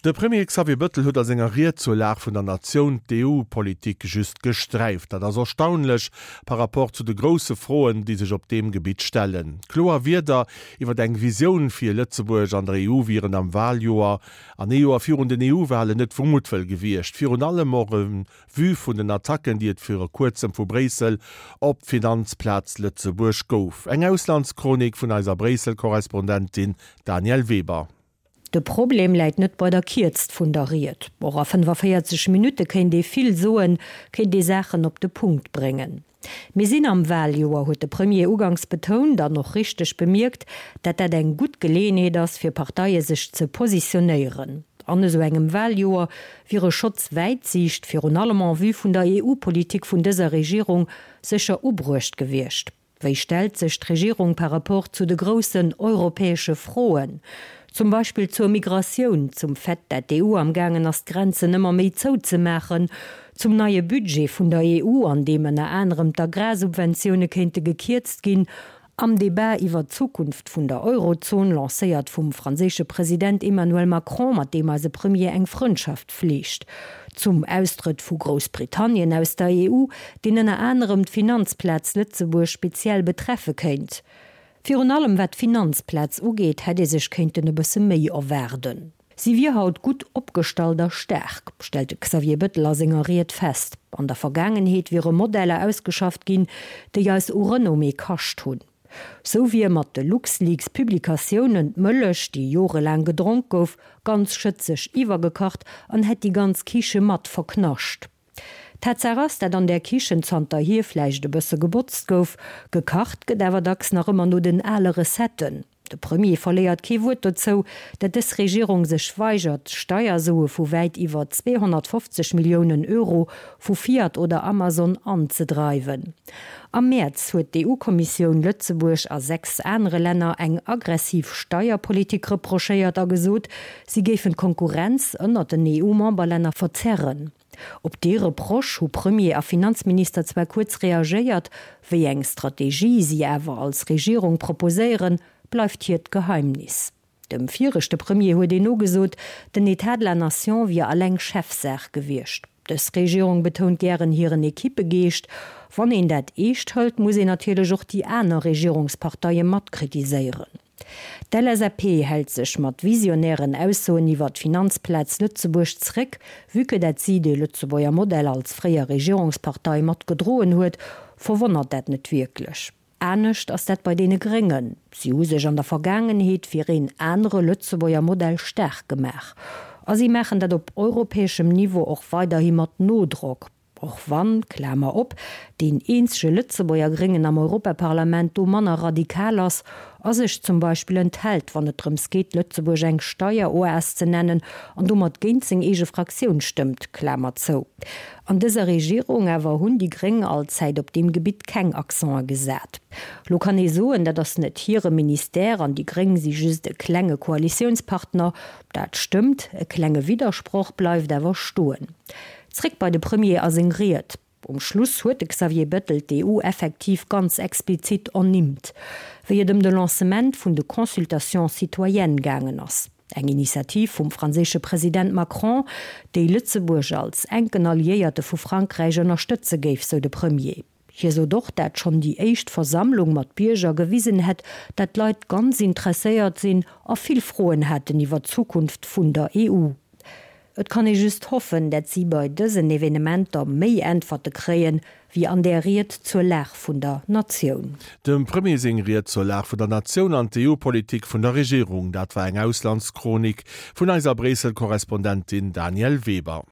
De Premier Xavier Bëttel huet a senger Ried zur Lag vun der Natioun d'EU-Politik just gesträift. Dat ass erstaunlech par rapport zu de grousse Froen, déi sech op deem Gebitt stellen. Kloer Wierder iwwer eng Visioun fir Lëtzebuerg an der EU wieren am Waljoer an ee Joer virun den EU-Walen net vu Muttwëll gewiescht. Virun allem och en vue vun den Attacken, déi et viru kuerzem vu Bréissel op d'Finanzplaz Lëtzebuerg gouf. Eng Auslandschronik vun eiser Bréissel-Korrespondentin Danièle Weber. De Problem läit net bei der Kierzt vun der Ried. Och a 45 Minutte kéint ee vill soen, kéint ee Saachen op de Punkt bréngen. Mir sinn am Waljoer, huet de Premier uganks betount an och richteg bemierkt, dat dat eng gutt Geleeënheet ass fir Parteie sech ze positionéieren. An esou engem Waljoer wier e Schotz Wäitsiicht, virun allem en vue vun der EU-Politik vun dëser Regierung, sécher ubruecht gewiescht. Wéi stellt sech d'Regierung par rapport zu de groussen europäesche Froen, zum Beispill zur Migratioun, zum Fait, dat d'EU am gaangen ass d'Grenzen ëmmer méi zouzemaachen, zum neie Budget vun der EU, an deem ënner anerem d'Agrarsubventioune kéinte gekierzt ginn, am Debat iwwer d'Zukunft vun der Eurozon, lancéiert vum franséische President Emmanuel Macron, mat deem eise Premier eng Frëndschaft fleegt, zum Austrëtt vu Groussbritannien aus der EU, deen ënner anerem d'Finanzplaz Lëtzebuerg speziell betreffe kéint. Virun allem wat d'Finanzplaz ugeet, hätt ee sech kéinten e bësse méi erwaarden. Si wier haut gutt opgestallt a staark, stellt de Xavier Bettel a senger Ried fest. An der Vergaangenheet wiere Modeller ausgeschafft ginn, déi eis u Renommée kascht hunn. Sou wier mat de LuxLeaks-Publikatiounen d'Mëllech, déi jorelaang gedronk gouf, ganz schëtzeg iwwergekacht an hätt déi ganz Kiche mat verknascht. Tatsaach ass, dat an där Kichen zanterhier vläicht e bësse gebotzt gouf, gekacht gëtt awer dacks nach ëmmer no den ale Recetten. De Premier verléiert kee Wuert dozou, dat dës Regierung sech weigert, Steiersue vu wäit iwwer 250 Milliounen Euro vu Fiat oder Amazon anzedreiwen. Am Mäerz huet d'EU-Kommissioun Lëtzebuerg a 6 anere Länner eng aggressiv Steierpolitik reprochéiert a gesot, si géifen d'Konkurrenz ënnert den EU-Memberlänner verzerren. Op dee Reproche hu Premier a Finanzminister zwar kuerz reagéiert, wéi eng Strategie si awer als Regierung proposéieren, bleift hiert Geheimnis. Dem viregte Premier huet een nogesot, den Etat de la Nation wier alleng Chefsaach gewiescht. Dës Regierung betount gären hiren Equippegeescht. Wann een dat eescht hëlt, muss een natierlech och déi aner Regierungsparteie mat kritiséieren. D'LSAP hält sech mat visionären Aussoen iwwer d'Finanzplaz Lëtzebuerg zréck. Vue que dat si de Lëtzebuerger Modell als fréier Regierungspartei mat gedroen huet, verwonnert dat net wierklech. Anescht ass dat bei deene Gréngen. Si hu sech an der Vergaangenheet fir een anere Lëtzebuerger Modell staark gemaach. A si maachen dat op europäeschem Niveau och weiderhi mat Nodrock. Och wann, Klamer op, deen eenzege Lëtzebuerger Gréngen am Europaparlament do manner radikal ass a sech zum Beispill enthält, wann et drëms geet, Lëtzebuerg eng Steieroas ze nennen an domat géint seng eege Fraktioun stëmmt, Klamer zou. An dëser Regierung awer hunn déi Gréng allzäit op deem Gebitt keng Accenten gesat. Lo kann ee soen, dat ass net hire Ministère an déi Gréng si just e klenge Koalitiounspartner. Dat stëmmt, e klenge Widdersproch bleift awer stoen. Zréck bei de Premier a seng Ried. Um Schluss huet de Xavier Bettel d'EU effektiv ganz explizit ernimmt, wéi et ëm de Lancement vun de Consultations citoyennes gaangen ass. Eng Initiativ vum franséische President Macron, déi Lëtzebuerg als enken Alliéierte vu Frankräich ënnerstëtze géif, sou de Premier. Hie sot och, dat schonn déi éischt Versammlung mat Bierger gewisen hätt, dat d'Leit ganz interesséiert sinn a vill Froen haten iwwer d'Zukunft vun der EU. Et kann ee just hoffen, dat si bei dësen Evenementer méi Äntwerte kréien, wéi an där Ried zur Lag vun der Natioun. Dem Premier seng Ried zur Lag vun der Natioun an d'EU-Politik vun der Regierung, dat war eng Auslandschronik vun eiser Bréissel-Korrespondentin Danièle Weber.